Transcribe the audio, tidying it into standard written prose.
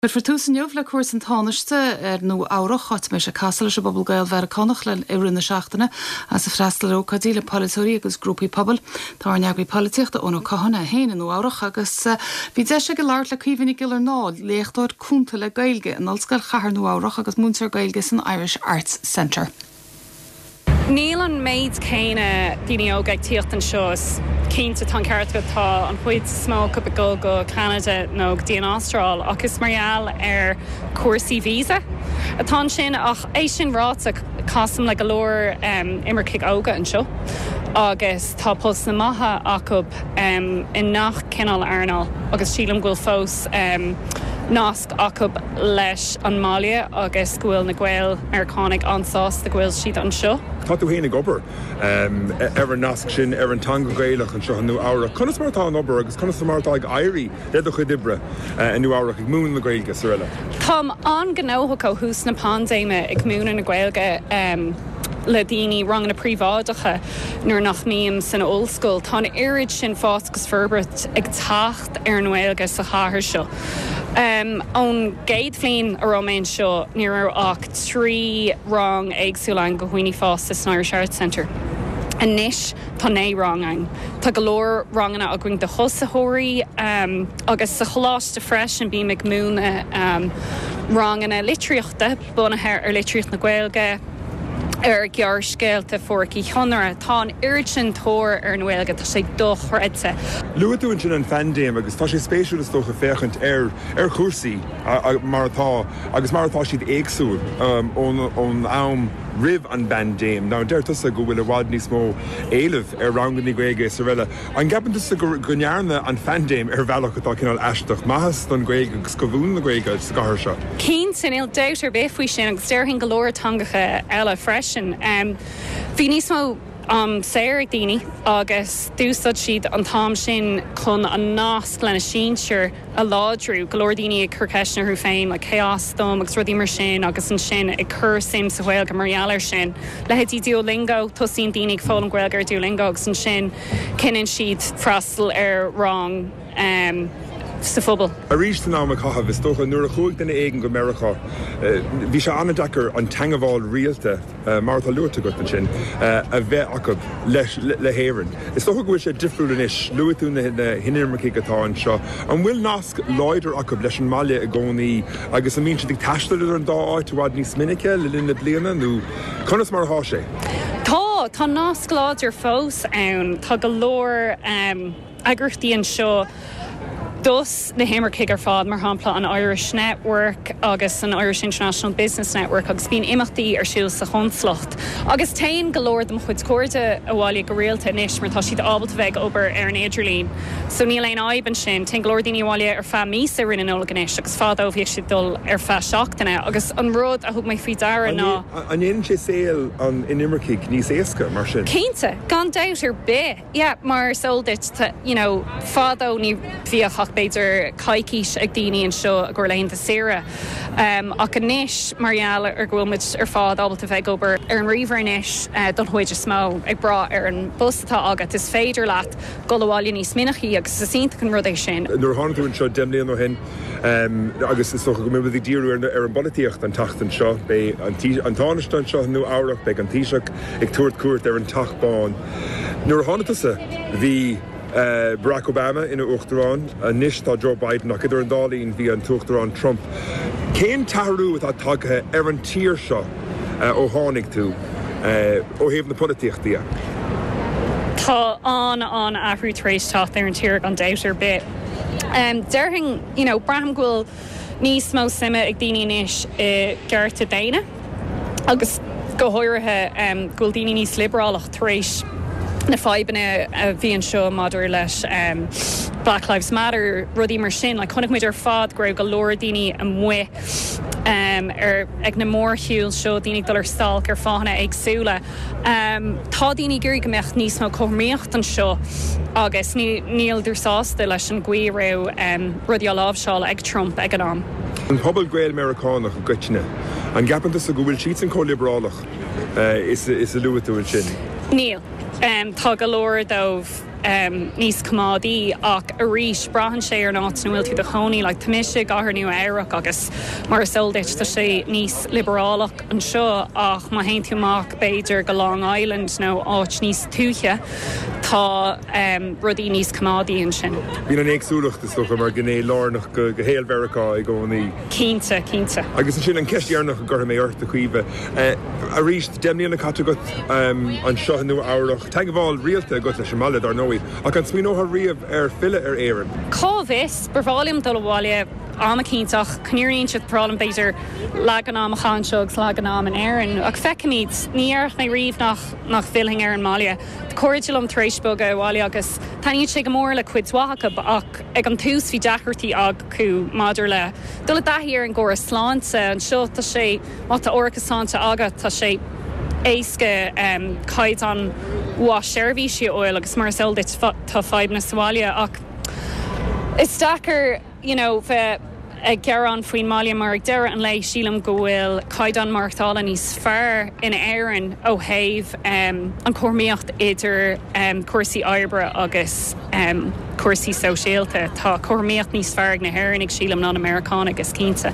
Cuirfear tús inniu le cuairt an Tánaiste ar Nua Eabhrac, áit a mbeidh sé ag casadh leis an bpobal Gael-Mheiriceánach le i rith na seachtaine agus ag freastal ar ócáidí le polaiteoirí agus grúpaí pobail. Tá ár n-eagraí polaitíochta Eoin Ó Catháin é féin i Nua Eabhrac agus bhí deis aige labhairt le Caoimhe Nic Giollarnáth, léachtóir cúnta le Gaeilge in Ollscoil Chathair Nua Eabhrac agus múinteoir Gaeilge san Irish Arts Centre. Níl an méid céanna daoine óga ag tíocht anseo. Is cinnte, tá an ceart agat, tá an chuid is mó acu ag dul go Ceanada nó go dtí an Astráil ach is mar gheall ar chúrsaí visa atá ansin. Ach é sin ráite, casaim le go leor imircigh óga anseo agus tá postanna maithe acu i ngach cineál earnáil agus sílim go bhfuil fós nasc acu leis an mbaile agus go bhfuil na Gael-Meiriceánaigh an-sásta go bhfuil siad anseo. Tá tú féin ag obair ar an nasc sin, ar an teanga Ghaelach anseo i Nua Eabhrac. Conas mar atá an obair agus conas mar atá ag éirí le do chuid oibre i Nua Eabhrac, ag múineadh na Gaeilge is araile? Táim an-ghnóthach ó thús na paindéime ag múineadh na Gaeilge le daoine, ranganna príobháideacha nuair nach mbím san ollscoil. Tá an oiread sin fás agus forbairt ag teacht. ar an nGaeilge sa chathair seo. Ón gcéad bhliain a raibh mé anseo ní raibh ach 3 rang éagsúla ann do dhaoine fásta san Irish Arts Centre. Anois tá 9 rang ann. Tá go leor ranganna againn do thosaitheoirí agus sa choláiste freisin bím ag múineadh ranganna litríochta bunaithe ar litríocht na Gaeilge. ar ghearrscéalta Phádraic Uí Chonaire. Tá an oiread sin tóir ar an nGaeilge, tá sé dochreidte. Luaigh tú ansin an phaindéim agus tá sé spéisiúil is dócha féachaint ar ar chúrsaí mar atá agus mar atá siad éagsúil ón am roimh an bpaindéim. Now deir tusa go bhfuil i bhfad níos mó éilimh ar ranganna Gaeilge is araile. An gceapann tusa go ndearna an phaindéim ar bhealach atá cineál aisteach maitheas don Ghaeilge agus do mhúineadh na Gaeilge sa gcathair seo? Cinnte, níl dabht ar bith faoi sin agus déarfainn go leor teangacha eile freisin. Bhí níos mó am saor ag daoine agus d'úsáid siad an t-am sin chun an nasc lena sinsir a láidriú, go leor daoine ag cur ceisteanna orthu féin, like cé as dom agus rudaí mar sin agus ansin ag cur suim sa Ghaeilge mar gheall air sin. Leithéidí Duolingo, tosaíonn daoine ag foghlaim Gaeilge ar Duolingo agus ansin cinneann siad freastal ar rang sa phobal. Arís san am a caitheadh, is dócha, nuair a chuaigh duine éigin go Meiriceá, bhí sé an-deacair an teangmháil rialta, mar atá luaite agat ansin, a bheith acu le hÉirinn. Is dócha go bhfuil sé difriúil anois. Luaigh tú na hinimircigh atá anseo. An bhfuil nasc láidir acu leis an mbaile i gcónaí agus an mbíonn siad ag taisteal idir an dá áit i bhfad níos minice le linn na bliana nó conas mar atá sé? Tá, tá nasc láidir fós ann. Tá go leor. eagraíochtaí anseo dos na himircigh ar fad, mar shampla an Irish Network agus an Irish International Business Network agus bíonn imeachtaí ar siúl sa chonsalacht. Agus téann go leor de mo chuid cairde abhaile go rialta anois mar tá siad ábalta bheith ag obair ar an idirlíon so níl aon fhadhb ansin. Téann go leor daoine abhaile ar feadh míosa i rith na Nollag anois agus fadó bhíodh siad ag dul ar feadh seachtaine agus an rud a thug mé faoi deara ná. An ndéanann sé saol an inimircigh níos éasca mar sin? Cinnte, gan dabht ar bith! Yeah, mar is eol duit, tá, you know, fadó ní bhíodh ach b'fhéidir coicís ag daoine anseo i gcomhair laethanta saoire. Ach anois, mar gheall ar go bhfuil muid ar fad ábalta bheith ag obair ar an ríomhaire anois don chuid is mó, ag brath ar an bpost atá agat, is féidir leat dul abhaile níos minicí agus is iontach an rud é sin. Nuair a tháinig tú anseo 10 mbliana ó shin, Agus is dócha go mbeidh muid ag díriú ar an bpolaitíocht an tseachtain seo. Beidh an Tánaiste anseo i Nua Eabhrac, beidh an Taoiseach ag tabhairt cuairt ar an Teach Bán. Nuair a tháinig tusa, bhí Barack Obama ina Uachtarán, anois tá Joe Biden, ach idir an dá linn bhí an tUachtarán Trump. Cén t-athrú atá tagtha ar an tír seo ó tháinig tú, ó thaobh na polaitíochta dhe? Tá an-an-athrú tar éis teacht ar an tír gan dabht ar bith. Déarfainn, you know, braithim go bhfuil níos mó suime ag daoine anois i gcearta daonna agus go háirithe go bhfuil daoine níos liobrálach tar éis na fadhbanna a bhí anseo maidir leis Black Lives Matter, rudaí mar sin. Like, chonaic muid ar fad go raibh go leor daoine amuigh ar ag na mórshiúil seo, daoine ag dul ar stailc ar fáthanna éagsúla. Tá daoine ag iarraidh go mbeadh níos mó cothromaíocht anseo agus níleadar sásta leis an gcaoi a raibh rudaí á láimhseáil ag Trump ag an am. An pobal Gael-Meiriceánach i gcoitinne, an gceapann tusa go bhfuil siadsan chomh liobrálach is a luaigh tú ansin? Níl. Tá go leor dóibh. níos coimeádaí ach arís braitheann sé ar an áit ina bhfuil tú i do chónaí. Like tá mise i gcathair Nua Eabhrac agus mar is eol duit tá sé níos liobrálach anseo ach má théann tú amach b'fhéidir go Long Island nó áit níos tuaithe tá rudaí níos coimeádaí ansin. Bíonn an éagsúlacht is dócha mar ghné lárnach de shaol Mheiriceá i gcónaí. Cinnte, cinnte. Agus ansin an cheist dheireanach a gcuirfidh mé ort, a Chaoimhe. Arís, 10 mbliana caite agat anseo i Nua Eabhrac, teagmháil rialta agat leis an mbaile, dar ndóigh, ach an smaoineofá riamh ar filleadh ar Éirinn? Cá bhfios? Ba bhreá liom dul abhaile am eicínt ach chun an fhírinne a inse, ba bhreá liom b'fhéidir leath den am a chaitheamh anseo agus leath den am in Éirinn. Ach feicfimid. Ní déarfadh mé riamh nach nach bhfillfinn ar an mbaile. Tá cairde liom tar éis bogadh abhaile agus taitníonn sé go mór le cuid mhaith acu ach ag an tús bhí deacrachtaí acu maidir le dul i dtaithí ar an gcóras sláinte. Anseo tá sé, má tá árachas sláinte agat, tá sé éasca caighdeán mhaith seirbhísí a fháil agus mar is eol duit tá fadhbanna sa bhaile ach is deacair you know bheith ag gearán faoin mbaile mar ag deireadh an lae sílim go bhfuil caighdeán maireachtála níos fearr in Éirinn ó thaobh an chothromaíocht idir cúrsaí oibre agus cúrsaí sóisialta. Tá cothromaíocht níos fearr ag na hÉireannaigh sílim ná na Meiriceánaigh is cinnte.